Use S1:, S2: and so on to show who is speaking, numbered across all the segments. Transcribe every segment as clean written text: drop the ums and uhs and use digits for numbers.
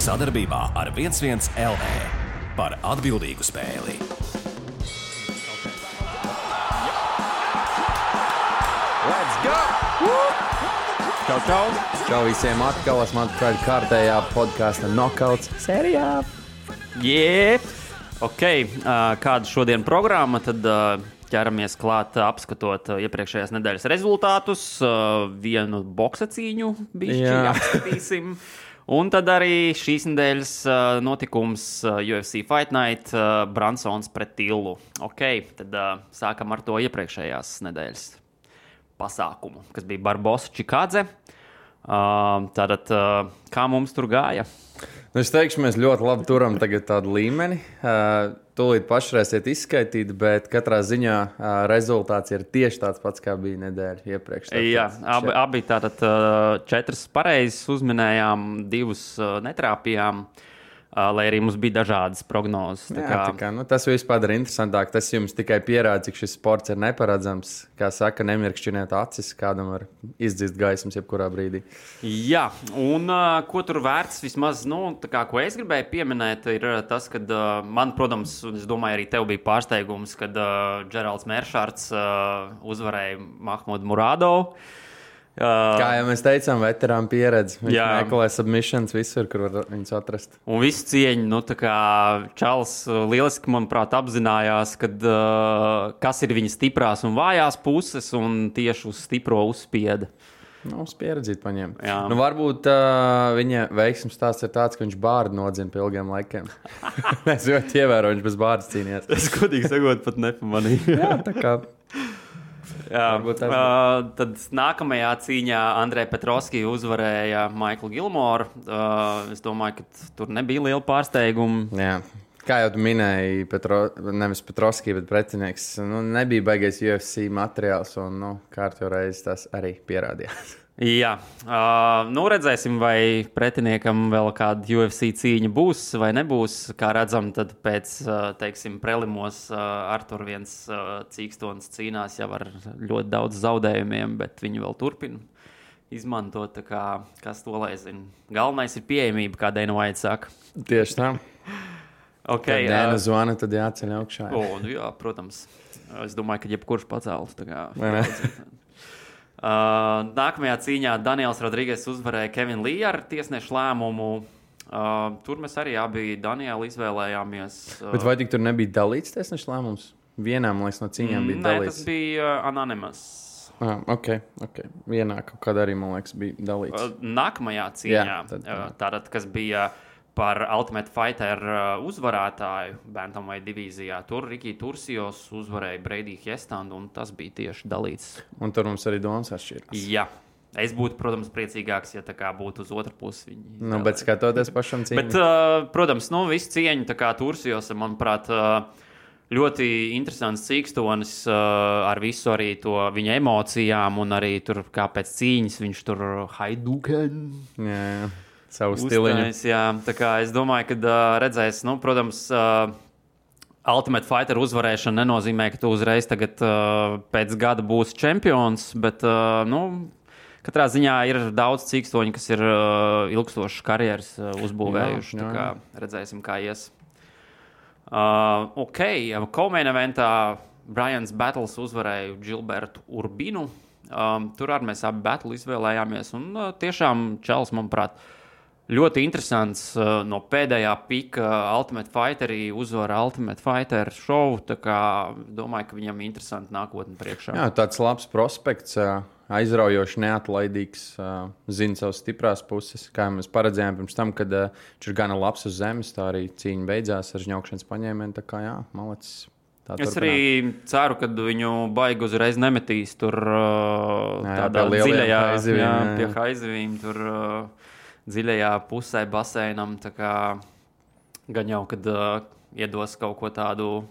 S1: Sadarbībā ar 11 LV par atbildīgu spēli.
S2: Let's go! Čau! Čau visiem atkal, esmu atpakaļ kārtējā podkāsta Knockouts sērijā.
S3: Kāda šodien programma, tad ķeramies klāt apskatot iepriekšējās nedēļas rezultātus, vienu boksa cīņu bišķi apskatīsim. Un tad arī šīs nedēļas notikums UFC Fight Night, Bransons pret Tillu. Tad sākam ar to iepriekšējās nedēļas pasākumu, kas bija Barbosa Čikādze. Tātad, kā mums tur gāja?
S2: Es teikšu, mēs ļoti labi turam tagad tādu līmeni. Tūlīt pašreiziet izskaitīt, bet katrā ziņā rezultāts ir tieši tāds pats, kā bija nedēļa iepriekš.
S3: Jā, abi tātad 4 pareizes uzminējām, 2 netrāpījām. Lai arī mums bija dažādas prognozes.
S2: Tas viss padara interesantāk. Tas jums tikai pierāda, cik šis sports ir neparedzams. Kā saka, nemirkšķiniet acis, kādam var izdzist gaismas jebkurā brīdī.
S3: Jā, un ko tur vērts vismaz, ko es gribēju pieminēt, ir tas, ka man, protams, es domāju, arī tev bija pārsteigums, kad Džeralds Meršārds uzvarēja Mahmudu Muradovu.
S2: Kā jau mēs teicām, veterāna pieredze. Viņš meklē submissions visur, kur var viņus atrast.
S3: Un visu cieņu, Čāls lieliski, manuprāt, apzinājās, kas ir viņa stiprās un vājās puses, un tieši uz stipro uzspieda.
S2: Uz pieredzīt paņem. Varbūt viņa veiksmes stāsts ir tāds, ka viņš bārdu nodzina pie ilgiem laikiem. Es ļoti ievēroju, viņš bez bārdas cīnījās.
S3: Es godīgi sakot, pat nepamanīju.
S2: Jā, tā kā...
S3: Tad nākamajā cīņā Andrei Petrovski uzvarēja Maiklu Gilmoru. Es domāju, ka tur nebija liela pārsteiguma.
S2: Jā. Kā jau tu minēji, nevis Petrovski, bet pretinieks, nebija baigais UFC materiāls, un kārtībā reiz tas arī pierādījās.
S3: Jā, redzēsim, vai pretiniekam vēl kāda UFC cīņa būs vai nebūs. Kā redzam, tad pēc, prelimos Artur viens cīkstons cīnās jau ar ļoti daudz zaudējumiem, bet viņi vēl turpina izmantot, kas to lai zina. Galvenais ir pieejamība, kā Dana White saka.
S2: Tieši tā. Kad Dana zvana, tad jāceļ augšā.
S3: Jā, protams. Es domāju, ka jebkurš pacēlus. Nākamajā cīņā Daniels Rodrīgas uzvarēja Kevinu Līju ar tiesnešu lēmumu. Tur mēs arī abi Danielu izvēlējāmies.
S2: Bet vai tik tur nebija dalīts tiesnešu lēmums? Vienā, man liekas, no cīņām bija dalīts.
S3: Nē, tas bija anonymous.
S2: Ok. Vienā kaut kādā arī, man liekas, bija dalīts.
S3: Nākamajā cīņā, tātad, kas bija par Ultimate Fighter uzvarētāju Bantamweight divīzijā. Tur Riki Tursijos uzvarēja Brady Hiestandu, un tas bija tieši dalīts.
S2: Un tur mums arī domas atšķirās.
S3: Jā. Es būtu, protams, priecīgāks, ja tā kā būtu uz otru pusi.
S2: Bet skatoties pašam cīņu.
S3: Bet, protams, visu cieņu tā kā Tursijos, manuprāt, ļoti interesants cīkstonis ar visu arī to viņa emocijām, un arī tur kā pēc cīņas viņš tur Hadouken.
S2: Jā. Savu stiliņu.
S3: Tā kā es domāju, ka redzēs, protams, Ultimate Fighter uzvarēšana nenozīmē, ka tu uzreiz tagad pēc gada būsi čempions, bet, katrā ziņā ir daudz cīkstoņu, kas ir ilgstošas karjeras uzbūvējuši. Tā kā redzēsim, kā ies. Co-main eventā Brians Battles uzvarēja Gilbertu Urbinu. Tur arī mēs abi battle izvēlējāmies, un tiešām Čels, manuprāt, ļoti interesants no pēdējā pika Ultimate Fighterī uzvara Ultimate Fighter show, tā kā domāju, ka viņam interesanti nākotne priekšā.
S2: Jā, tāds labs prospekts, aizraujoši, neatlaidīgs, zina savas stiprās puses, kā mēs paredzējām pirms tam, kad viņš ir gana labs uz zemes, tā arī cīņa beidzās ar žņaukšanas paņēmienu, tā kā malacis.
S3: Es arī ceru, ka viņu baigi uzreiz nemetīs tur tādā dziļajā pie haizivīm, tur dziļajā pusē basēnam, tā kā gan jau, kad iedos kaut ko tādu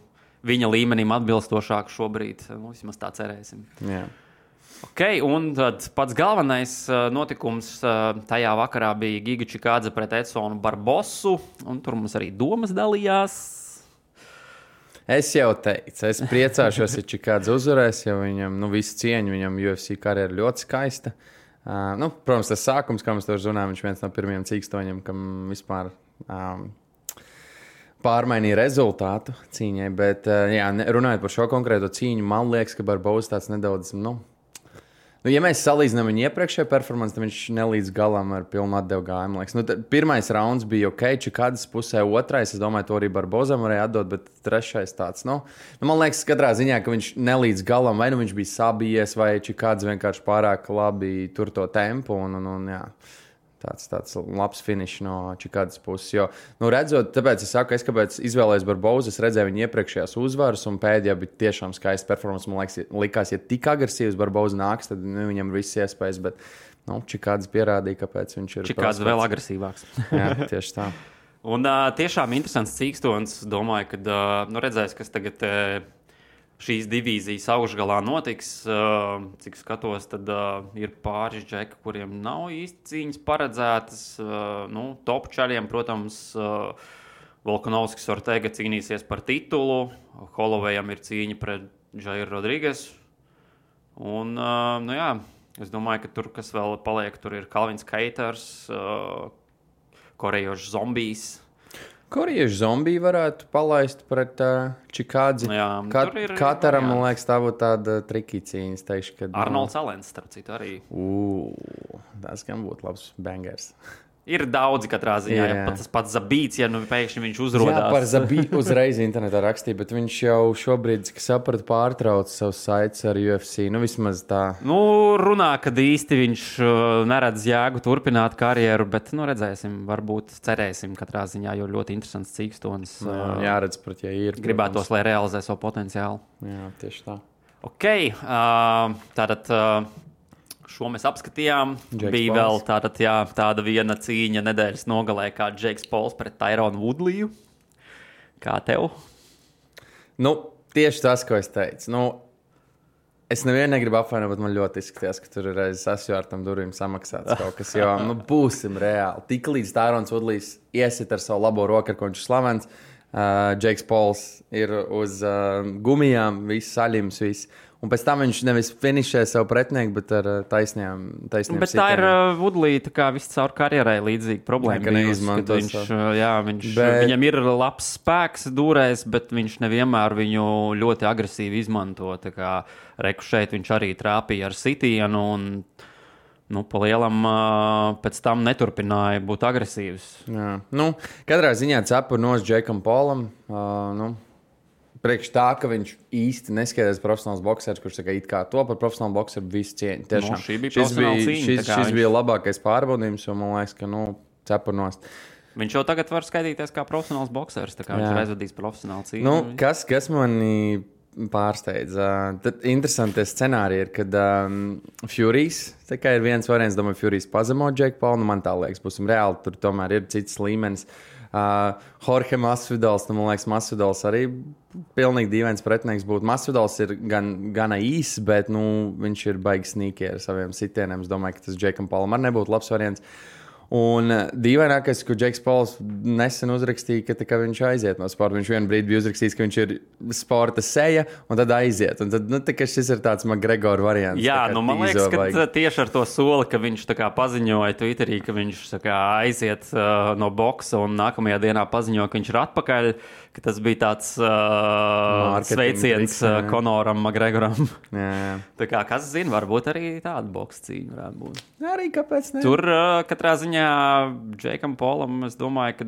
S3: viņa līmenim atbilstošāku šobrīd, vismaz tā cerēsim.
S2: Jā.
S3: Un tad pats galvenais notikums tajā vakarā bija Giga Čikādze pret Edsonu Barbosu, un tur mums arī domas dalījās.
S2: Es jau teicu, es priecāšos, ja Čikādze uzvarēs, jo viņam, visu cieņu, viņam UFC karjera ļoti skaista. Protams, tas sākums, kā mēs to runājam, viņš viens no pirmajiem cīkstoņiem, kam vispār pārmainīja rezultātu cīņai, bet, runājot par šo konkrēto cīņu, man liekas, ka Barboza tāds nedaudz, ja mēs salīdzinām viņu iepriekšējo performanci, tad viņš nelīdz galam ar pilnu atdevu gājumu. Pirmais rauns bija ok, Čikādas pusē, otrais, es domāju, to arī Barbozam varēja atdot, bet trešais tāds, man liekas, katrā ziņā, ka viņš nelīdz galam, vai viņš bija sabijies, vai Čikādas vienkārši pārāk labi tur to tempu, jā. Tāds labs finišs no Čikādas puses. Jo, redzot, tāpēc es saku, kāpēc izvēlējos Barbozu, es redzēju viņa iepriekšējās uzvaras, un pēdējā bija tiešām skaista performance. Man liekas, ja tik agresīvs Barboza nāks, tad viņam ir viss iespējas, bet Čikādas pierādīja, kāpēc viņš ir.
S3: Čikādas vēl agresīvāks.
S2: Jā, tieši tā.
S3: Un tiešām interesants cīkstons. Domāju, ka redzēs, kas tagad šīs divīzijas augšgalā notiks. Cik skatos, tad ir pāris džeki, kuriem nav īsti cīņas paredzētas. Top čaļiem, protams, Volkanovskis Ortega cīnīsies par titulu. Hollowayam ir cīņa pret Jairu Rodriguez. Un, es domāju, ka tur, kas vēl paliek, tur ir Kalvins Keiters, korejiešu zombijs.
S2: Korejiešu zombiju varētu palaist pret Čikādzi. Kataram, man liekas, tā būtu tāda triki cīņa. Teikšu, kad,
S3: Arnolds Alens, starp citu, arī.
S2: Tas gan būtu labs bangers.
S3: Ir daudzi katrā ziņā. Ja tas pats Zabīts, pēkšņi viņš uzrodās.
S2: Jā, par Zabītu uzreiz internetā rakstīja, bet viņš jau šobrīd, cik sapratu, pārtrauc savus saites ar UFC. Vismaz tā.
S3: Runā, kad īsti viņš neredz jēgu turpināt karjeru, bet, redzēsim, varbūt cerēsim katrā ziņā, jo ļoti interesants cīkstons.
S2: Jāredz, ja ir.
S3: Gribētos, lai realizē savu potenciālu.
S2: Jā, tieši tā.
S3: Ok, tātad... Šo mēs apskatījām.
S2: Jake
S3: Bija
S2: Pauls.
S3: vēl tāda viena cīņa nedēļas nogalē, kā Džeiks Pols pret Tyronu Woodleyu. Kā tev?
S2: Tieši tas, ko es teicu. Es nevienu negribu apvainot, bet man ļoti izskatījās, ka tur ir aiz asjārtam durvīm samaksāts kaut kas. Jo, būsim reāli. Tik līdz Tyrons Woodlejs iesit ar savu labo roku, ar ko viņš ir slavens. Džeiks Pols ir uz gumijām, viss saļims, viss. Un pēc tam viņš nevis finišē savu pretinieku, bet ar taisniem
S3: Bet
S2: sitieniem.
S3: tā ir Woodleja visu caur karjerai līdzīga problēma. Viņam ir labs spēks dūrēs, bet viņš nevienmēr viņu ļoti agresīvi izmanto. Reku šeit viņš arī trāpīja ar sitienu un pa lielam pēc tam neturpināja būt agresīvs.
S2: Jā. Katrā ziņā cepur nos Džekam Polam. Priekš tā, ka viņš īsti neskaidrs profesionāls boksers, kurš it kā to par profesionālu bokseru visu cieņu. Tiešām.
S3: Šī bija profesionāla cīņa.
S2: Šis bija labākais pārbaudījums, un man liekas, ka cepurnos.
S3: Viņš jau tagad var skaitīties kā profesionāls boksers, tā kā viņš ir aizvadījis profesionālu cīņu.
S2: Kas mani pārsteidza? Tad interesanti scenāriji ir, kad Furijs, tā kā ir viens variants, domāju, Furijs pazemo Džeku Paulu, man tā liekas, būsim reāli, tur tomēr ir cits līmenis. Jorge Masvidals, man liekas, Masvidals arī pilnīgi dīvains pretinieks būtu. Masvidals ir gana īss, bet viņš ir baigi sīki ar saviem sitieniem. Es domāju, ka tas Džekam Paulam arī nebūtu labs variants. Un dīvainākais, ko Džeks Pauls nesen uzrakstīja, ka viņš aiziet no sporta. Viņš vienā brīdī bija uzrakstījis, ka viņš ir sporta seja, un tad aiziet. Un tad šis ir tāds McGregor variants.
S3: Jā, man liekas, ka tieši ar to soli, ka viņš paziņoja Twitterī, ka viņš aiziet no boksa un nākamajā dienā paziņoja, ka viņš ir atpakaļ, ka tas bija tāds sveiciens Konoram McGregoram.
S2: Jā.
S3: Tā kā, kas zina, varbūt arī tāda boksa cīņa varētu būt.
S2: Arī kāpēc ne?
S3: Tur katrā ziņā Džekam Polam, es domāju, ka,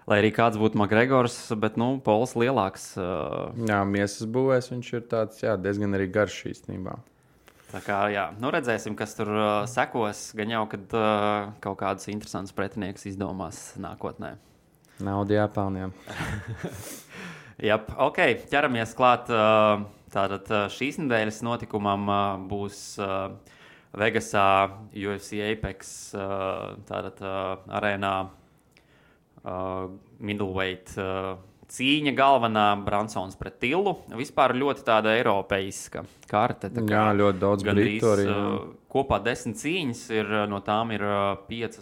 S3: lai arī kāds būtu McGregors, bet, Pols lielāks.
S2: Jā, miesas būvēs viņš ir tāds, diezgan arī garš īstenībā.
S3: Tā kā, redzēsim, kas tur sekos. Gan jau, kad kaut kādus interesantus pretinieks izdomās nākotnē.
S2: Nauda jāpelnā.
S3: Ok, ķeramies klāt. Tātad šīs nedēļas notikumam būs Vegasā UFC Apex arēnā middleweight cīņa galvenā Bransons pret Tillu. Vispār ļoti tāda eiropeiska karte.
S2: Jā, ļoti daudz britu arī.
S3: Kopā 10 cīņas ir, no tām ir 5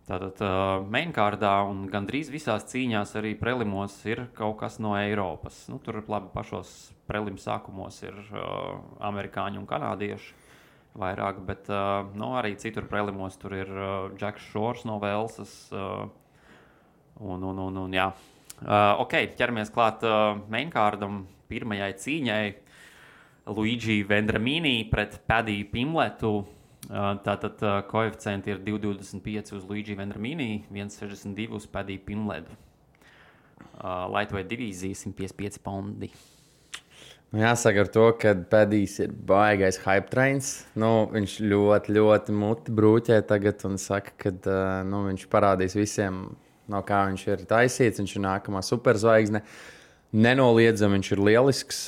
S3: tātad mainkārdā, un gandrīz visās cīņās arī prelimos ir kaut kas no Eiropas. Tur labi pašos prelim sākumos ir amerikāņi un kanādieši. vairāk, bet arī citur prelimos tur ir Džeks Šors no Velsas. Jā. Ok, ķeramies klāt mainkārdam pirmajai cīņai. Luigi Vendramini pret Padiju Pimletu. Tātad koeficienti ir 2,25 uz Luigi Vendramini, 1,62 uz Padiju Pimletu. Lightweight divīzija 155 paundi.
S2: Jāsaka ar to, ka Padijs ir baigais hype trains. Viņš ļoti muti brūķē tagad un saka, ka viņš parādīs visiem, no kā viņš ir taisīts. Viņš ir nākamā superzvaigzne. Nenoliedzami viņš ir lielisks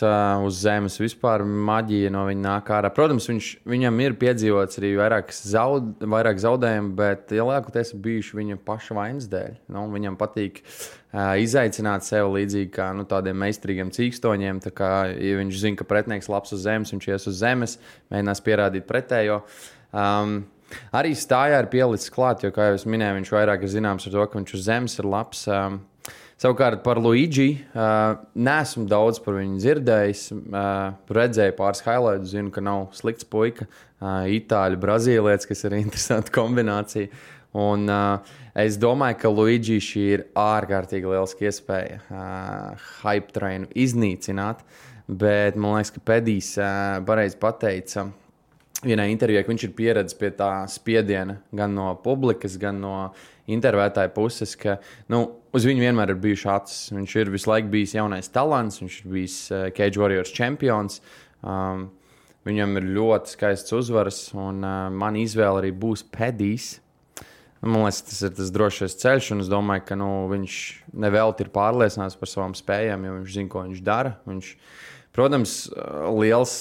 S2: uz zemes vispār. Maģija no viņa nāk ārā. Protams, viņam ir piedzīvots arī vairāk zaudējumu, bet lielākoties bijuši viņa paša vainas dēļ. Viņam patīk izaicināt sevi līdzīgi kā tādiem meistarīgiem cīkstoņiem. Tā kā, ja viņš zina, ka pretinieks labs uz zemes, viņš ies uz zemes, mēģinās pierādīt pretējo. Arī stājā ir pielicis klāt, jo, kā jau es minēju, viņš vairāk ir zināms ar to, ka viņš uz zemes ir labs. Savukārt par Luigi neesmu daudz par viņu dzirdējis. Redzēju pāris highlights, zinu, ka nav slikts puika. Itāļu, brazīlietis, kas ir interesanta kombinācija. Un es domāju, ka Luigi šī ir ārkārtīgi lieliska iespēja hype trainu iznīcināt. Bet man liekas, ka Padijs pareizi pateica vienā intervijā, ka viņš ir pieredzējis pie tā spiediena gan no publikas, gan no intervētāja puses, ka uz viņu vienmēr ir bijuši acis. Viņš ir visu laiku bijis jaunais talants, viņš ir bijis Cage Warriors čempions. Viņam ir ļoti skaists uzvaras, un man izvēle arī būs Padijs. Man liekas, tas ir tas drošais ceļš, un es domāju, ka viņš nevelti ir pārliecināts par savām spējām, jo viņš zina, ko viņš dara. Viņš, protams, liels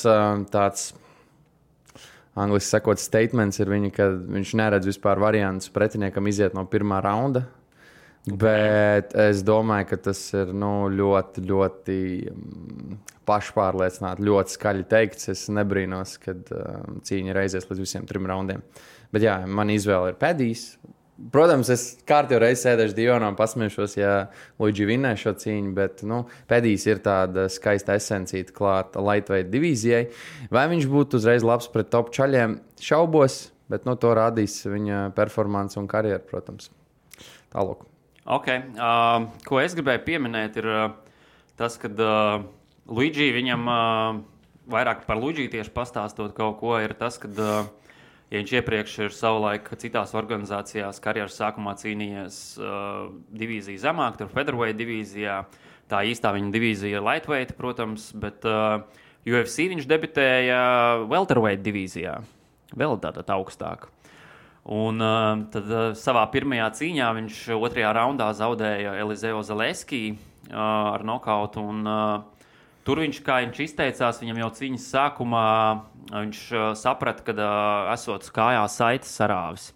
S2: tāds angliski sakot, statements ir viņa, ka viņš neredz vispār variantus pretiniekam iziet no pirmā raunda. Bet es domāju, ka tas ir ļoti pašpārliecināti, ļoti skaļi teikts. Es nebrīnos, kad cīņa ir aizies līdz visiem 3 raundiem. Bet jā, man izvēle ir Padijs. Protams, es kārtīgi reiz sēdēšu divonā un pasmiešos, ja Luigi vinnēs šo cīņu, bet Padijs ir tāda skaista esencīta klāta lightweight divīzijai. Vai viņš būtu uzreiz labs pret top čaļiem? Šaubos, bet to rādīs viņa performance un karjeru, protams. Tālāk.
S3: Ok, ko es gribēju pieminēt ir tas, kad Luigi viņam vairāk par Luigi tieši pastāstot kaut ko, ir tas, kad ja viņš iepriekš ir savulaik citās organizācijās karjeras sākumā cīnījies divīziju zemāk, tur featherweight divīzijā, tā īstā viņa divīzija ir lightweight, protams, bet UFC viņš debitēja welterweight divīzijā, vēl tātad augstāk. Un tad savā pirmajā cīņā viņš 2. raundā zaudēja Elizeo Zaleski ar nokautu, un tur viņš, kā viņš izteicās, viņam jau cīņas sākumā viņš saprata, ka esot kājā saites sarāvis.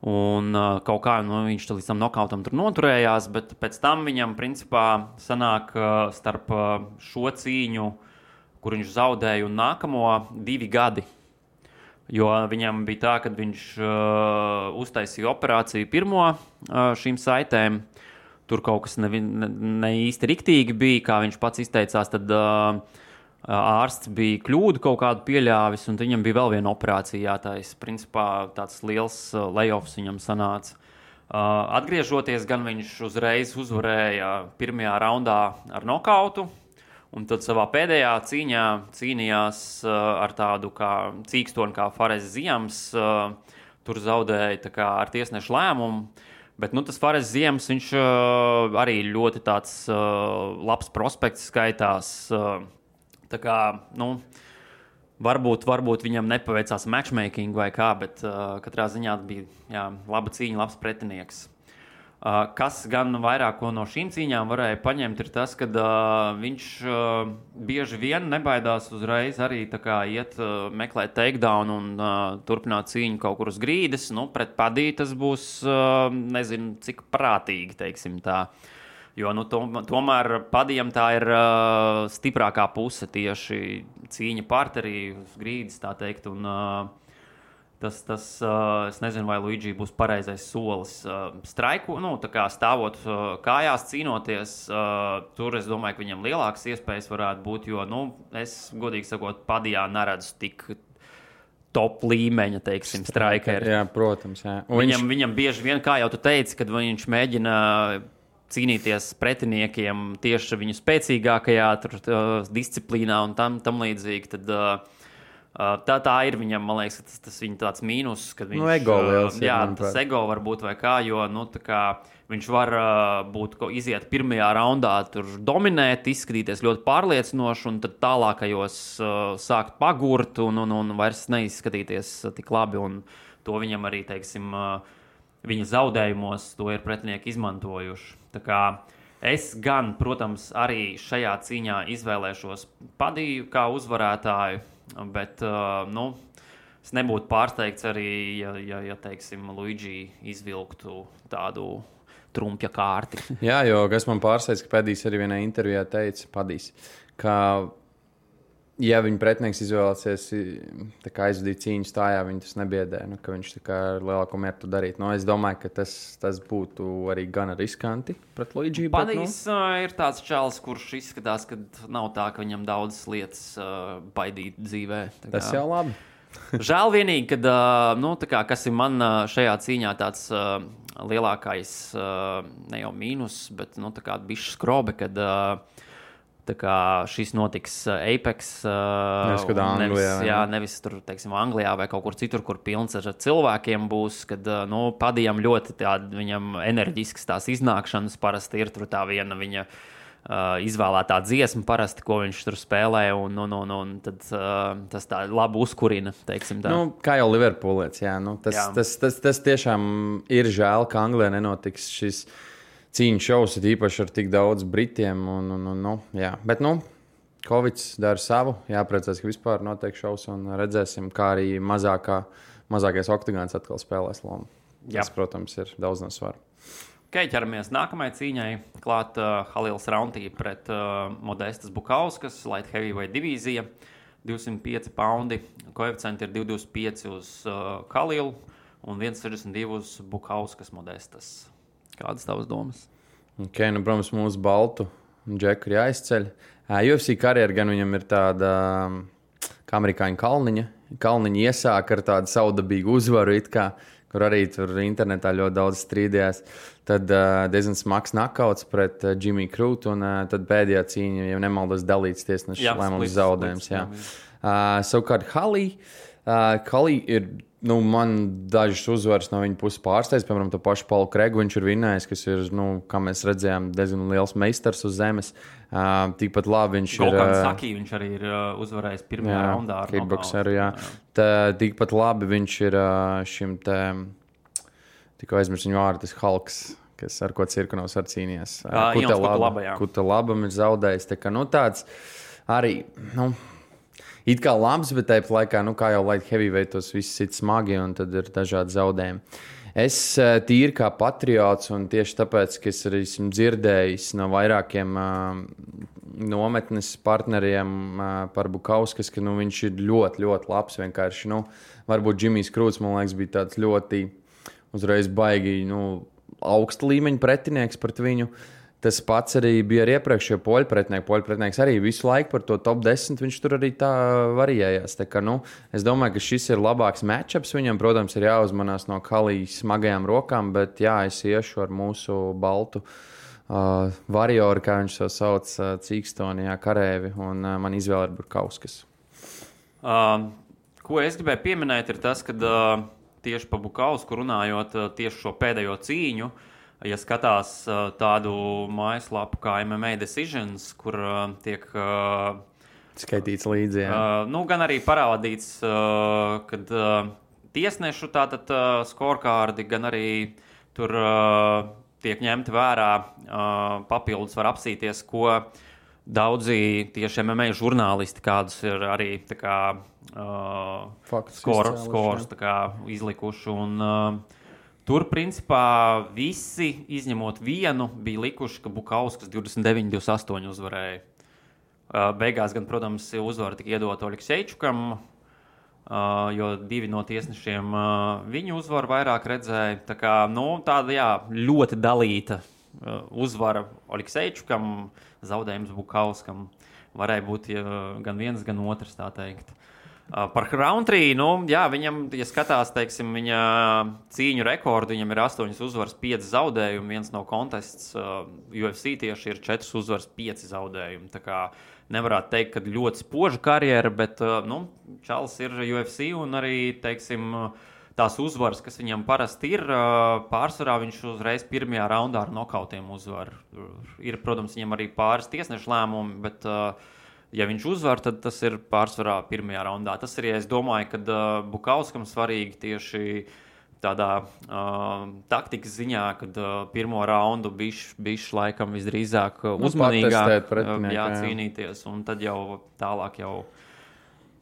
S3: Un kaut kā viņš līdz tam nokautam tur noturējās, bet pēc tam viņam principā sanāk starp šo cīņu, kur viņš zaudēja, un nākamo 2 gadi. Jo viņam bija tā, ka viņš uztaisīja operāciju pirmo šīm saitēm. Tur kaut kas ne īsti riktīgi bija, kā viņš pats izteicās, tad ārsts bija kļūdu kaut kādu pieļāvis, un viņam bija vēl viena operācija jātais. Principā tāds liels layoffs viņam sanāca. Atgriežoties, gan viņš uzreiz uzvarēja pirmajā raundā ar nokautu, un tad savā pēdējā cīņā cīnījās ar tādu kā cīkstoni kā Fares Ziems. Tur zaudēja tā kā ar tiesnešu lēmumu. Bet tas Fares Ziems, viņš arī ļoti tāds labs prospekts skaitās. Tā kā, varbūt viņam nepaveicās matchmaking vai kā, bet katrā ziņā bija laba cīņa, labs pretinieks. Kas gan vairāk no šīm cīņām varēja paņemt, ir tas, ka viņš bieži vien nebaidās uzreiz arī tā kā iet meklēt takedown un turpināt cīņu kaut kur uz grīdas. Pret Padiju tas būs, nezinu, cik prātīgi, teiksim tā. Jo tomēr Padijam tā ir stiprākā puse tieši cīņa parterī uz grīdas, tā teikt, un tas es nezinu, vai Luigi būs pareizais solis straiku, tā kā stāvot kājās, cīnoties, tur es domāju, ka viņam lielākas iespējas varētu būt, jo, es godīgi sakot, Padijā neredzu top līmeņa, teiksim, strikeri.
S2: Jā, protams. Jā.
S3: Viņam bieži vien, kā jau tu teici, kad viņš mēģina cīnīties pretiniekiem tieši viņu spēcīgākajā disciplīnā un tam līdzīgi, tad tā ir viņam, man liekas, tas viņa tāds mīnus, kad viņš...
S2: ego liels.
S3: Jā, tas ego var būt vai kā, jo, tā kā viņš var iziet pirmajā raundā, tur dominēt, izskatīties ļoti pārliecinoši, un tad tālākajos sākt pagurt un vairs neizskatīties tik labi. Un to viņam arī, teiksim, viņa zaudējumos to ir pretinieki izmantojuši. Tā kā es gan, protams, arī šajā cīņā izvēlēšos Padiju kā uzvarētāju, bet, es nebūtu pārsteigts arī, ja teiksim, Luigi izvilktu tādu trumpja kārti.
S2: Jā, jo kas man pārsteidz, ka Padijs arī vienā intervijā teica, ka, ja viņa pretinieks izvēlēsies aizvadīt cīņu stājā, viņa tas nebiedē, ka viņš ar lielāko mieru to darīt. Es domāju, ka tas būtu arī gan riskanti pret Luigi.
S3: Padijs ir tāds čalis, kurš izskatās, ka nav tā, ka viņam daudzas lietas baidīt dzīvē.
S2: Tas jau labi.
S3: Žēl vienīgi, kad, kas ir man šajā cīņā tāds lielākais, ne jau mīnus, bet bišķi skrobe, kad šis notiks Apex, nevis tur, teiksim, Anglijā vai kaut kur citur, kur pilns ar cilvēkiem būs, kad, Padijam ļoti viņam enerģisks tās iznākšanas parasti ir tur tā viena viņa izvēlētā dziesma parasti, ko viņš tur spēlē, un tad tas tā labi uzkurina, teiksim tā.
S2: Kā jau Liverpoolietis, jā. Tas tiešām ir žēl, ka Anglijā nenotiks šis cīņu šovs, īpaši ar tik daudz britiem, jā. Bet, Covids dara savu, jāpriecās, ka vispār notiek šovs, un redzēsim, kā arī mazākais oktagons atkal spēlēs lomu. Tas, protams, ir daudz no svaru.
S3: Ķeramies nākamajai cīņai. Klāt Halils Rauntī pret Modestas Bukauskas, light heavyweight divīzija, 205 paundi. Koeficienti ir 225 uz Halilu un 162 uz Bukauskas Modestas. Kādas tavas domas?
S2: Protams, mūsu baltu džeku ir jāizceļ. UFC karjera gan viņam ir tāda kā amerikāņu Kalniņa iesāk ar tādu saudabīgu uzvaru, kur arī tur internetā ļoti daudz strīdējās. Tad diezgan smags nakauts pret Jimmy Krūtu, un tad pēdējā cīņa, ja nemaldos, dalīts tiesneša lēmums zaudējums. Savukārt Halī ir, man dažas uzvaras no viņa puses pārsteidz, piemēram, to pašu Paulu Kregu viņš ir vinnējis, kas ir, kā mēs redzējām, diezgan liels meistars uz zemes. Tikpat labi viņš ir...
S3: Golkan Saki viņš arī ir uzvarējis pirmajā raundā ar
S2: kickboxeru, jā. Tikpat labi viņš ir šim te... Tikko aizmirst viņu vārdu, tas Halks, ar ko Cirkunovs ar cīnījās. Kuta labam ir zaudējis. Tā kā, tāds arī, it kā labs, bet tāpat laikā, kā jau light heavyweight, tos viss ir smagi, un tad ir dažādi zaudējumi. Es tīri kā patriots, un tieši tāpēc, ka es arī esmu dzirdējis no vairākiem nometnes partneriem par Bukauskas, ka viņš ir ļoti, ļoti labs. Vienkārši, varbūt Džimijs Krūts, man liekas, bija tāds ļoti uzreiz baigi augsta līmeņa pretinieks pret viņu. Tas pats arī bija ar iepriekšējo poļu pretinieku. Poļu pretinieks arī visu laiku par to top 10, viņš tur arī tā variējās. Tā kā, es domāju, ka šis ir labāks matchups viņam. Protams, ir jāuzmanās no Halijas smagajām rokām, bet jā, es iešu ar mūsu baltu varioru, kā viņš to sauc, Cīkstonijā karēvi, un man izvēle ir Bukauskas.
S3: Ko es gribēju pieminēt, ir tas, ka tieši par Bukausku runājot, tieši šo pēdējo cīņu, ja skatās tādu mājaslapu kā MMA Decisions, kur tiek
S2: skaitīts līdzi,
S3: gan arī parādīts, kad tiesnešu tātad scorekārdi, gan arī tur tiek ņemti vērā, papildus var apsīties, ko daudzi tieši MMA žurnālisti, kādus ir arī tā kā skorus tā kā izlikuši, un tur, principā, visi, izņemot vienu, bija likuši, ka Bukauskas 29-28 uzvarēja. Beigās gan, protams, uzvara tika iedota Oleksejčukam, jo divi no tiesnešiem viņu uzvaru vairāk redzēja. Tā kā, tāda, jā, ļoti dalīta uzvara Oleksejčukam, zaudējums Bukauskam. Varēja būt gan viens, gan otrs, tā teikt. Par Roundtree, viņam, ja skatās, teiksim, viņa cīņu rekordu, viņam ir 8 uzvaras, 5 zaudējumi. Viens no kontests UFC tieši ir 4 uzvaras, 5 zaudējumi. Tā kā nevarētu teikt, ka ļoti spoža karjera, bet Čalis ir UFC un arī, teiksim, tās uzvaras, kas viņam parasti ir, pārsvarā viņš uzreiz pirmajā raundā ar nokautiem uzvar. Ir, protams, viņam arī pāris tiesnešu lēmumi, bet ja viņš uzvar, tad tas ir pārsvarā pirmajā raundā. Tas arī, es domāju, ka Bukauskam svarīgi tieši tādā taktikas ziņā, kad pirmo raundu bišķi laikam visdrīzāk uzmanīgāk cīnīties, un tad jau tālāk jau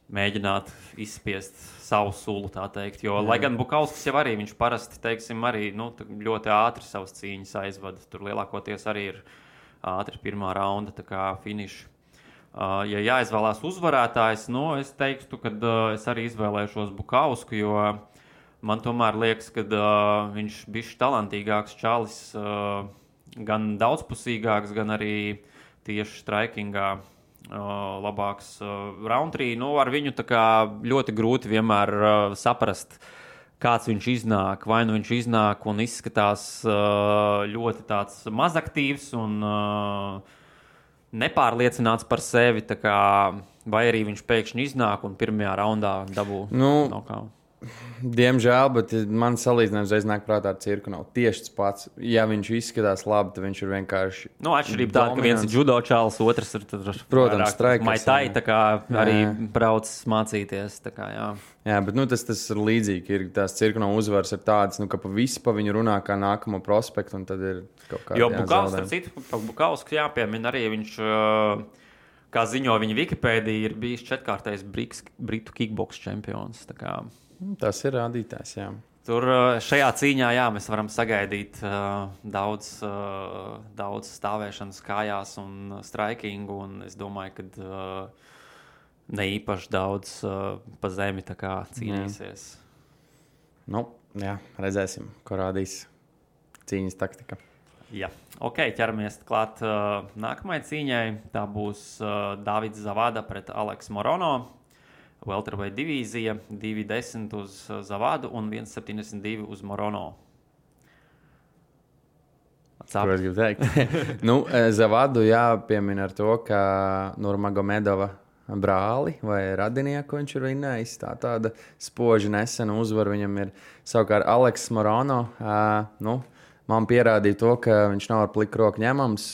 S3: mēģināt izspiest savu sulu, tā teikt. Jo, lai gan Bukauskas jau arī, viņš parasti, teiksim, arī ļoti ātri savas cīņas aizvada. Tur lielākoties arī ir ātri pirmā raunda, tā kā finiši. Ja jāizvēlās uzvarētājs, es teiktu, ka es arī izvēlēšos Bukausku, jo man tomēr liekas, ka viņš bišķi talantīgāks Čalis, gan daudzpusīgāks, gan arī tieši straikingā labāks Roundtree. Ar viņu tā kā ļoti grūti vienmēr saprast, kāds viņš iznāk. Vai nu viņš iznāk un izskatās ļoti tāds mazaktīvs un nepārliecināts par sevi, vai arī viņš pēkšņi iznāk un pirmajā raundā dabū nokautu.
S2: Diemžēl, bet man salīdzinājums reiz nāk prātā ar cirku nav tieši tas pats. Ja viņš izskatās labi, tad viņš ir vienkārši
S3: atšķirība tāda, ka viens ir judo čalis, otrs ir
S2: protams, straikers.
S3: Maitai, tā kā arī brauc mācīties, tā kā, jā.
S2: Jā, bet tas ir līdzīgi. Ir tās cirku nav uzvaras ir tādas, ka pa visu pa viņu runā kā nākamo prospektu, un tad ir kaut kāda
S3: jo Bukauskas, starp citu, Bukauskas jāpiemina arī viņš, kā ziņo viņa Wikipēdija, ir bijis 4-kārtais Britu kickboks čempions, tā kā.
S2: Tas ir rādītājs, jā.
S3: Tur šajā cīņā, mēs varam sagaidīt daudz stāvēšanas kājās un straikingu, un es domāju, ka ne īpaši daudz pa zemi tā kā cīnīsies.
S2: Jā, redzēsim, ko rādīs cīņas taktika.
S3: Jā, ķeramies klāt nākamajai cīņai. Tā būs Davids Zavada pret Aleksu Morono. Welterweight divīzija, 2,10 uz Zavadu un 1,72 uz Morono.
S2: Ko es gribu teikt? Zavadu jāpiemina ar to, ka Nurmagomedova brāli vai radinieku viņš ir vinnējis. Tāda spoži nesena uzvara viņam ir. Savukārt Aleks Morono, man pierādīja to, ka viņš nav ar pliku roku ņemams.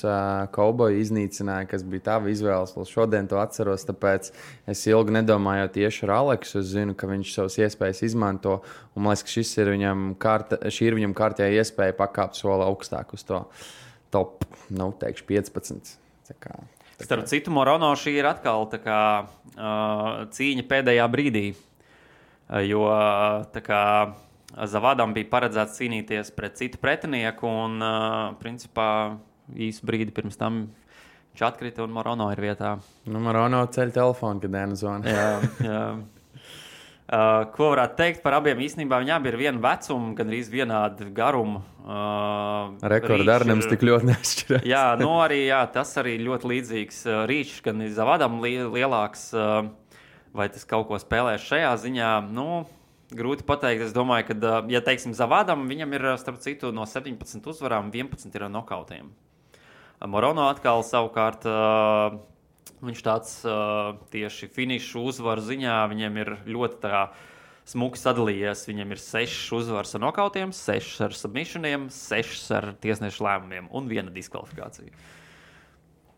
S2: Kauboju iznīcināja, kas bija tava izvēles. Vēl šodien to atceros, tāpēc es ilgi nedomāju tieši ar Aleksu. Es zinu, ka viņš savas iespējas izmanto. Un man liekas, ka šī ir viņam kārtējā iespēja pakāpt soli augstāk uz to top, teikšu 15.
S3: Starp citu, Morono šī ir atkal tā kā cīņa pēdējā brīdī. Jo tā kā Zavadam bija paredzēts cīnīties pret citu pretinieku, un principā īsu brīdi pirms tam viņš atkrita, un Morono ir vietā.
S2: Morono ceļ telefonu, kad Dēna zvana.
S3: Jā. Ko varētu teikt par abiem? Īstenībā viņi abi ir viena vecuma, gan arī vienādi garuma.
S2: Rekordi arī nemaz tik ļoti neatšķirās.
S3: Jā, tas arī ļoti līdzīgs rīčs, gan Zavadam lielāks, vai tas kaut ko spēlēs šajā ziņā. Grūti pateikt. Es domāju, ka, ja teiksim Zavadam, viņam ir, starp citu, no 17 uzvarām 11 ir nokautiem. Morono atkal savukārt, viņš tāds tieši finišu uzvaru ziņā, viņam ir ļoti tā smuki sadalījies. Viņam ir 6 uzvaras ar nokautiem, 6 ar submissioniem, 6 ar tiesnešu lēmumiem un 1 diskvalifikācija.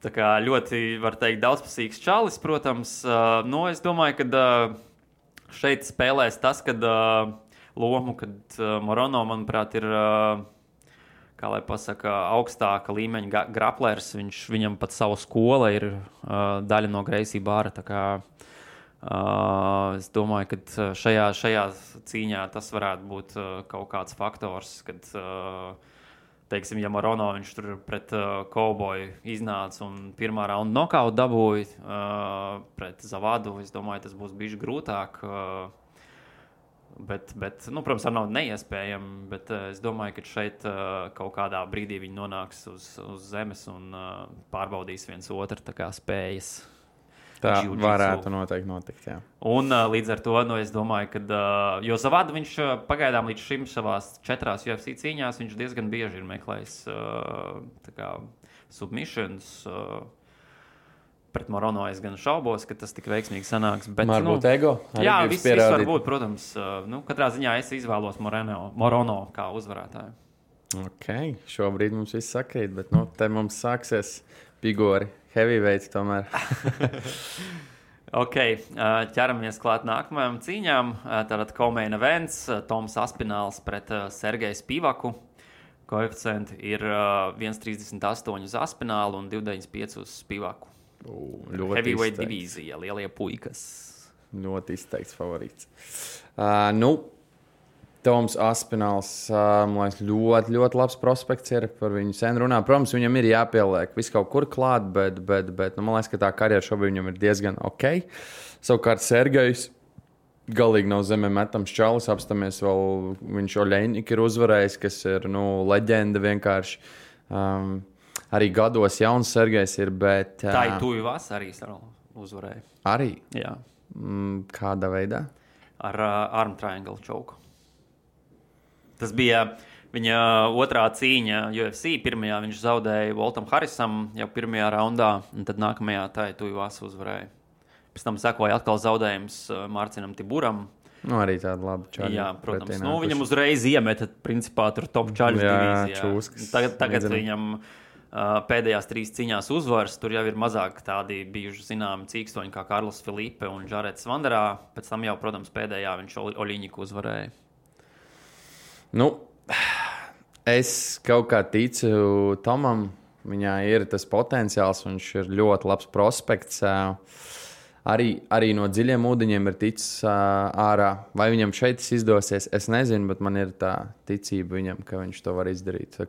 S3: Tā kā ļoti, var teikt, daudzpusīgs čalis, protams. Es domāju, ka šeit spēlēs tas, kad lomu, kad Morono, manuprāt, ir, kā lai pasaka, augstāka līmeņa graplers. Viņam pat savu skola ir daļa no Gracie Barra. Tā kā es domāju, ka šajā cīņā tas varētu būt kaut kāds faktors, kad teiksim, ja Morono viņš tur pret Kauboju iznāca un pirmā raunda nokautu dabūja pret Zavadu, es domāju, tas būs bišķi grūtāk. Bet protams, nav neiespējami, bet es domāju, ka šeit kaut kādā brīdī viņi nonāks uz zemes un pārbaudīs viens otru tā kā spējas.
S2: Tā
S3: jiu-jitsu.
S2: varētu noteikti notikt, jā.
S3: Un līdz ar to, es domāju, ka jo Zavada viņš pagaidām līdz šim savās 4 UFC cīņās, viņš diezgan bieži ir meklējis submissions. Pret Morono es gan šaubos, ka tas tik veiksmīgi sanāks. Bet,
S2: Varbūt ego.
S3: Jā, viss var būt, protams. Katrā ziņā es izvēlos Morono kā uzvarētāju.
S2: Ok, šobrīd mums viss sakrīt, bet te mums sāksies pigori, heavyweights tomēr.
S3: Ok, ķeramies klāt nākamajām cīņām. Tātad co-main events, Toms Aspināls pret Sergeju Spīvaku. Koeficienti ir 1,38 uz Aspinālu un 2,95 uz Spīvaku. Heavyweight divīzija, lielie puikas.
S2: Ļoti izteikts favorīts. Toms Aspināls, man liekas, ļoti, ļoti labs prospekts ir. Par viņu sen runā. Protams, viņam ir jāpieliek viss kaut kur klāt, bet man liekas, ka tā karjera šobrīd viņam ir diezgan ok. Savukārt Sergejs galīgi nav zemē metams čalis. Apstāmies vēl, viņš Oļeņņik ir uzvarējis, kas ir, leģenda vienkārši. Arī gados jauns Sergejs ir, bet...
S3: Tā ir Tuvivas arī uzvarēja.
S2: Arī?
S3: Jā.
S2: Kādā veidā?
S3: Ar arm triangle choke. Tas bija viņa otrā cīņa UFC. Pirmajā viņš zaudēja Voltam Harrisam jau pirmajā raundā, un tad nākamajā tā ir Tuvivas uzvarēja. Pēc tam sekoja atkal zaudējums Mārcinam Tiburam.
S2: Arī tāda laba čaļa.
S3: Jā, protams. Viņam uzreiz iemeta, principā, tur top čaļas divīzijā.
S2: Čūskas.
S3: Tagad viņam... Pēdējās 3 cīņās uzvaras, tur jau ir mazāk tādi bijuši zināmi cīkstoņi kā Karls Filipe un Žarets Vanderā. Pēc tam jau, protams, pēdējā viņš Oļiņiku uzvarēja.
S2: Es kaut kā ticu Tomam. Viņā ir tas potenciāls, viņš ir ļoti labs prospekts. Arī no dziļiem ūdeņiem ir ticis ārā. Vai viņam šeit izdosies, es nezinu, bet man ir tā ticība viņam, ka viņš to var izdarīt.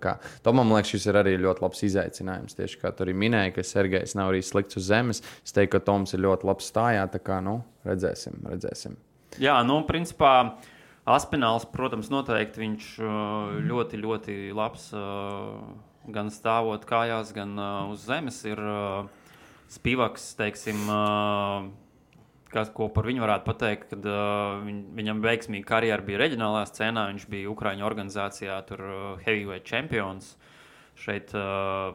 S2: Tomam, liekas, šis ir arī ļoti labs izaicinājums. Tieši kā tu arī minēji, ka Sergejs nav arī slikts uz zemes. Es teiktu, ka Toms ir ļoti labs stājā. Tā kā, redzēsim. Jā,
S3: principā Aspināls, protams, noteikti viņš ļoti, ļoti labs gan stāvot kājās, gan uz zemes ir... Spīvaks, teiksim, ko par viņu varētu pateikt, kad viņam veiksmīga karjera bija reģionālā scēnā, viņš bija Ukraiņu organizācijā, tur heavyweight champions. Šeit,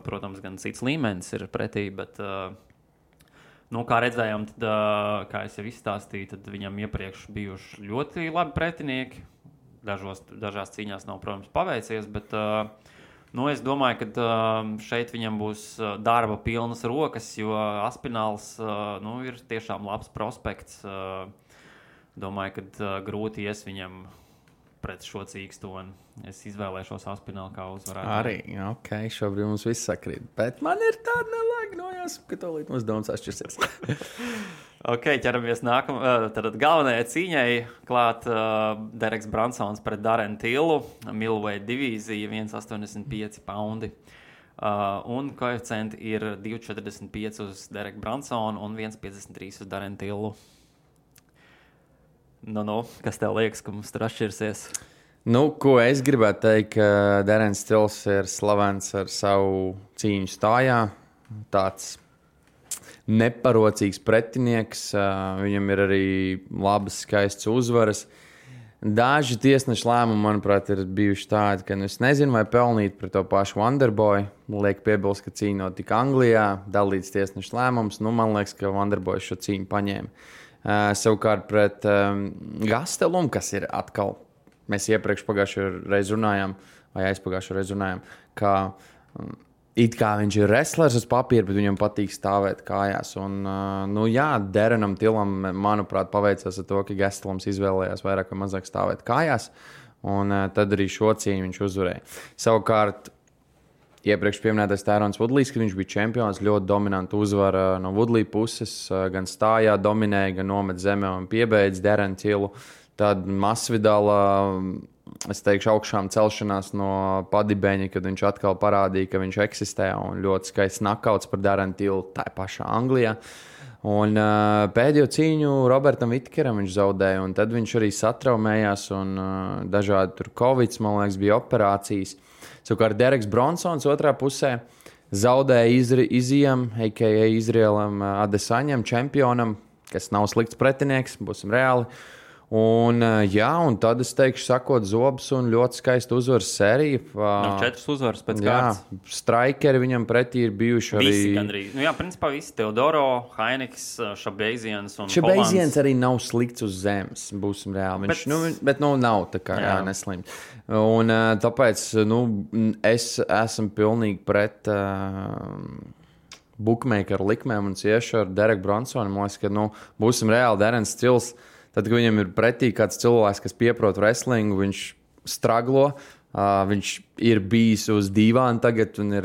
S3: protams, gan cits līmenis ir pretī, bet, kā redzējām, tad, kā es jau izstāstīju, tad viņam iepriekš bijuši ļoti labi pretinieki. Dažās cīņās nav, protams, paveicies, bet... es domāju, ka šeit viņam būs darba pilnas rokas, jo Aspināls ir tiešām labs prospekts. Domāju, ka grūti ies viņam pret šo cīkstoni. Es izvēlēšos Aspinālu kā uzvarētāju.
S2: Arī, ok, šobrīd mums viss sakrīt. Bet man ir tāda nelēga nojās, ka to līdz mums domas atšķirsies.
S3: Ok, ķeramies tad galvenajai cīņai klāt Dereks Bransons pret Darren Tillu, middleweight divīzija, 1,85 poundi. Un koeficienti ir 2,45 uz Dereku Bransonu un 1,53 uz Darren Tillu. Kas tev liekas, ka mums tur atšķirsies?
S2: Ko es gribētu teikt, ka Darrens Tills ir slavens ar savu cīņu stājā. Tāds neparocīgs pretinieks, viņam ir arī labas, skaistas uzvaras. Daži tiesnešu lēmumi, manuprāt, ir bijuši tādi, ka es nezinu, vai pelnīt par to pašu Wonderboy. Liek piebilst, ka cīņa notika Anglijā, dalīts tiesnešu lēmums. Man liekas, ka Wonderboy šo cīņu paņēma. Savukārt pret Gastelumu, kas ir atkal, mēs iepriekš pagājušajā reizē runājām, vai aizpagājušajā reizē runājām, ka it kā viņš ir wrestlers uz papīra, bet viņam patīk stāvēt kājās. Un, Darrenam Tillam, manuprāt, paveicās ar to, ka Gastelums izvēlējās vairāk vai mazāk stāvēt kājās, un tad arī šo cīņu viņš uzvarēja. Savukārt, iepriekš pieminētais Tyrons Woodleys, kad viņš bija čempions, ļoti dominantu uzvara no Woodley puses, gan stājā dominēja, gan nomet zemē un piebeidz Darren Tillu. Tad Masvidala, es teikšu, augšām celšanās no padibeņa, kad viņš atkal parādīja, ka viņš eksistē, un ļoti skaists knockouts par Darren Tillu tā pašā Anglijā. Un pēdējo cīņu Robertam Vitkeram viņš zaudēja, un tad viņš arī satraumējās, un dažādi tur Covid, man liekas, bija operācijas. Savukārt Dereks Bronsons otrā pusē, zaudēja Izijam, a.k.a. Izrielam Adesaņam, čempionam, kas nav slikts pretinieks, būsim reāli. Un tad es teikšu, sakot zobus un ļoti skaista uzvaras sērija.
S3: 4 uzvaras pēc kārtas.
S2: Strikeri viņam pretī ir bijuši arī.
S3: Visi gandrīz. Principā visi. Teodoro, Hainiks, Šabeiziens un
S2: Šabeiziens arī nav slikts uz zemes, būsim reāli. Bet nav tā kā neslimt. Un tāpēc es esmu pilnīgi pret bookmakeru likmēm un cieši ar Dereku Bronsonu. Man liekas, ka būsim reāli Derens Stils. Tad, kad viņam ir pretī kāds cilvēks, kas pieprot wrestlingu, viņš straglo, viņš ir bijis uz dīvāna tagad un ir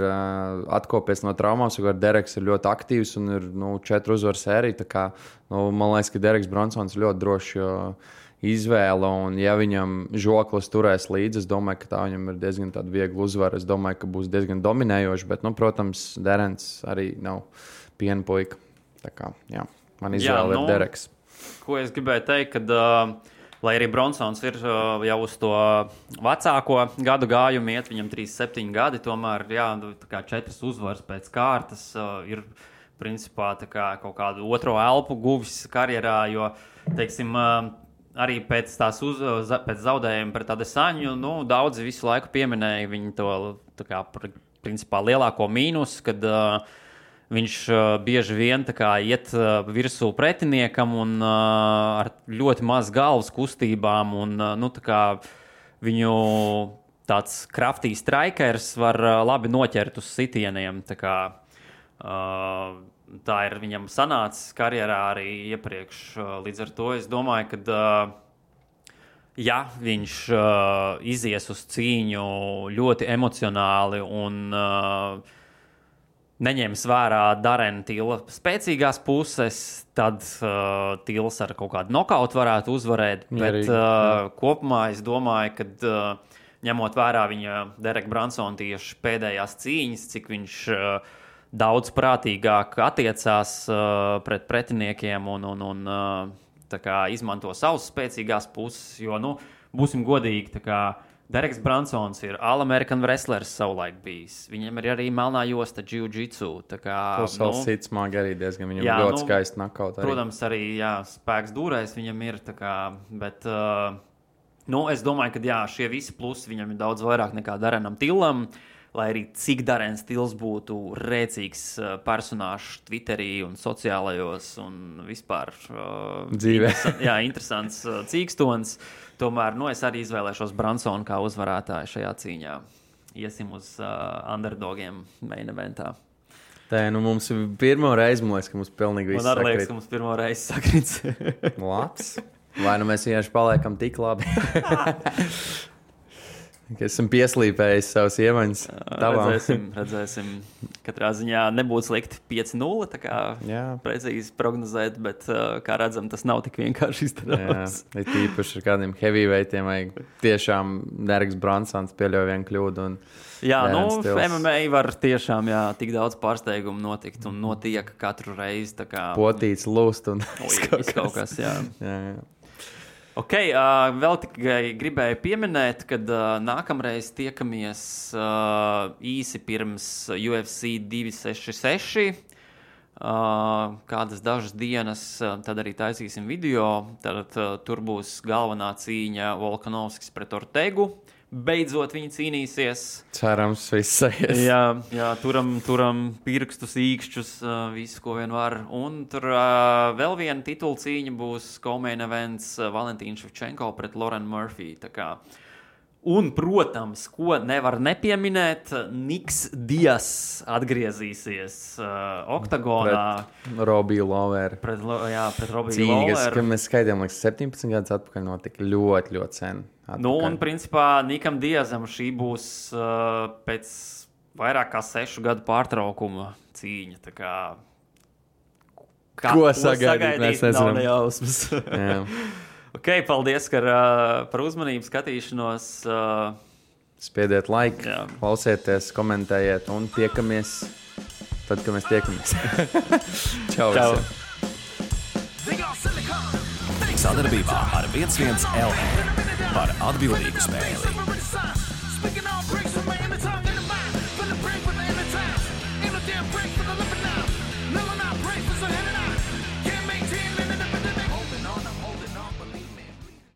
S2: atkopies no traumām. Dereks ir ļoti aktīvs un ir 4 uzvaru sērija. Tā kā, man liekas, ka Dereks Bronsons ir ļoti droši izvēle. Un, ja viņam žoklis turēs līdzi, es domāju, ka tā viņam ir diezgan viegla uzvara. Es domāju, ka būs diezgan dominējoši, bet, protams, Derens arī nav piena puika. Tā kā, man izvēle ir Dereks.
S3: Ko es gribēju teikt, kad, lai arī Bronsons ir jau uz to vecāko gadu gājumu iet, viņam 37 gadi, tomēr 4 uzvaras pēc kārtas ir principā kaut kādu otro elpu guvis karjerā, jo, teiksim, arī pēc zaudējuma pret Adesaņu, daudzi visu laiku pieminēja viņu to principā lielāko mīnus, kad viņš bieži vien iet virsū pretiniekam un ar ļoti maz galvas kustībām. Un, viņu tāds kraftīgs strikers var labi noķert uz sitieniem. Tā ir viņam sanācis karjerā arī iepriekš. Līdz ar to es domāju, ka viņš izies uz cīņu ļoti emocionāli un neņems vērā Darena Tila spēcīgās puses, tad Tils ar kaut kādu nokautu varētu uzvarēt. Bet kopumā es domāju, ka ņemot vērā viņa Dereka Bronsona tieši pēdējās cīņas, cik viņš daudz prātīgāk attiecās pret pretiniekiem un izmanto savas spēcīgās puses, jo, būsim godīgi, Dereks Bronsons ir All-American wrestlers savulaik bijis. Viņam ir arī melnā josta jiu-jitsu.
S2: Savs cits smagi arī diezgan viņam ļoti skaisti nakaut.
S3: Protams, arī spēks dūrēs viņam ir. Bet es domāju, ka šie visi plusi viņam ir daudz vairāk nekā Darenam Tilam. Lai arī cik Darens Tils būtu rēcīgs personāžs Twitterī un sociālajos un vispār
S2: dzīvē.
S3: Interesants cīkstons. Tomēr es arī izvēlēšos Bronsonu kā uzvarētāju šajā cīņā. Iesim uz underdogiem main eventā.
S2: Tā mums ir pirmo reizi, man liekas, ka mums pilnīgi viss
S3: sakrīt. Man arī liekas, ka mums pirmo reizi sakrits.
S2: Labs. Vai mēs vienkārši paliekam tik labi? Esam pieslīpējis savus iemaņas.
S3: Redzēsim. Katrā ziņā nebūtu slikti 5-0, tā kā precīzi prognozēt, bet, kā redzam, tas nav tik vienkārši izdarāms.
S2: Ir tīpaši ar kādiem heavyweightiem, vai tiešām Dereks Bronsons pieļauj vienu kļūdu.
S3: MMA var tiešām tik daudz pārsteigumu notikt un notiek katru reizi.
S2: Potīts, lūst un
S3: kaut kas. Ok, vēl tikai gribēju pieminēt, kad nākamreiz tiekamies īsi pirms UFC 266. Kādas dažas dienas, tad arī taisīsim video. Tad tur būs galvenā cīņa Volkanovskis pret Ortegu. Beidzot viņi cīnīsies.
S2: Cerams, viss aizies.
S3: Jā, turam pirkstus, īkšķus, visu, ko vien var. Un tur vēl viena titula cīņa būs co-main events Valentīna Ševčenko pret Lauren Murphy. Un, protams, ko nevar nepieminēt, Niks Dias atgriezīsies oktagonā.
S2: Pret Robiju Loweru.
S3: Pret Robiju
S2: Loweru. Cīņa, kas mēs skaidījām, 17 gadus atpakaļ notika ļoti, ļoti sen.
S3: Un, principā, Nikam Diazam šī būs pēc vairāk kā 6 gadu pārtraukuma cīņa.
S2: Ko sagaidīt? Mēs
S3: nezinām. Nav nejausmas. Ok, paldies par uzmanību, skatīšanos.
S2: Spiediet like, klausieties, komentējiet un tiekamies tad, kad mēs tiekamies. Čau!
S1: Sadarbībā ar 11 LV par atbildīgu spēli.